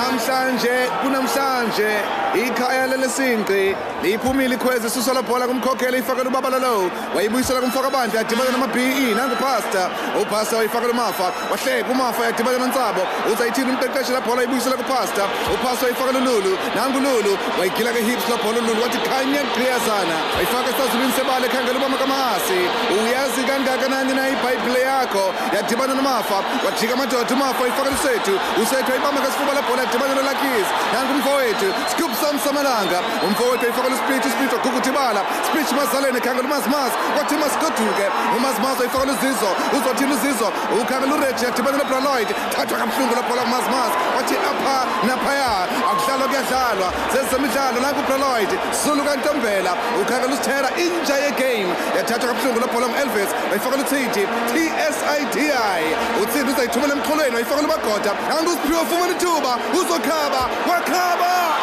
Namhlanje kunamhlanje ikhaya lelesinqi liphumile ikhwezi isusa la bhola kumkhokhela ifakela ubabala lo wayibuyisela kumfakabandla yadibana nama-BE nangu pastor upastor wayifakela umafa wahleka umafa yadibana nontsabo uzayithini umqeqeshi la bhola wayibuyisela kupastor upastor wayifakela ululu nangu lulu wayigila ke-hips la bhola ululu wathi khanya gqiyazana wayifaka esazulwini sebala ekhangela ubama kamahasi uyazi kangakanani na ibhayibhile yakho yadibana nomafa wajika amadoda umafa wayifakela usethu usethu wayibamba ngesifuba la bhola yadibana nolakis nangu umfowethu scoop sam samalanga umfowethu wayifakela uspeech uspeech waguguda ibala speech mazaleni ekhangela umazimaz wathi masigoduke umazimaz wayifakela uzizo uzothini uzizo ukhangela ureji yadibana nobraloid thathwa kabuhlungu la bhola kumazimaz wathi apha naphaya akudlalwa kuyadlalwa zezemidlalo nangu ubraloid zulu kantombela ukhangela usithera inja yegame yathathwa kabuhlungu la bhola ngu-elvis wayifakela uthidi tsidi uthidi uzayithumela emxholweni wayifakela umagoda nangu usiphiwe ufumana ithuba uzokhaba wakhaba.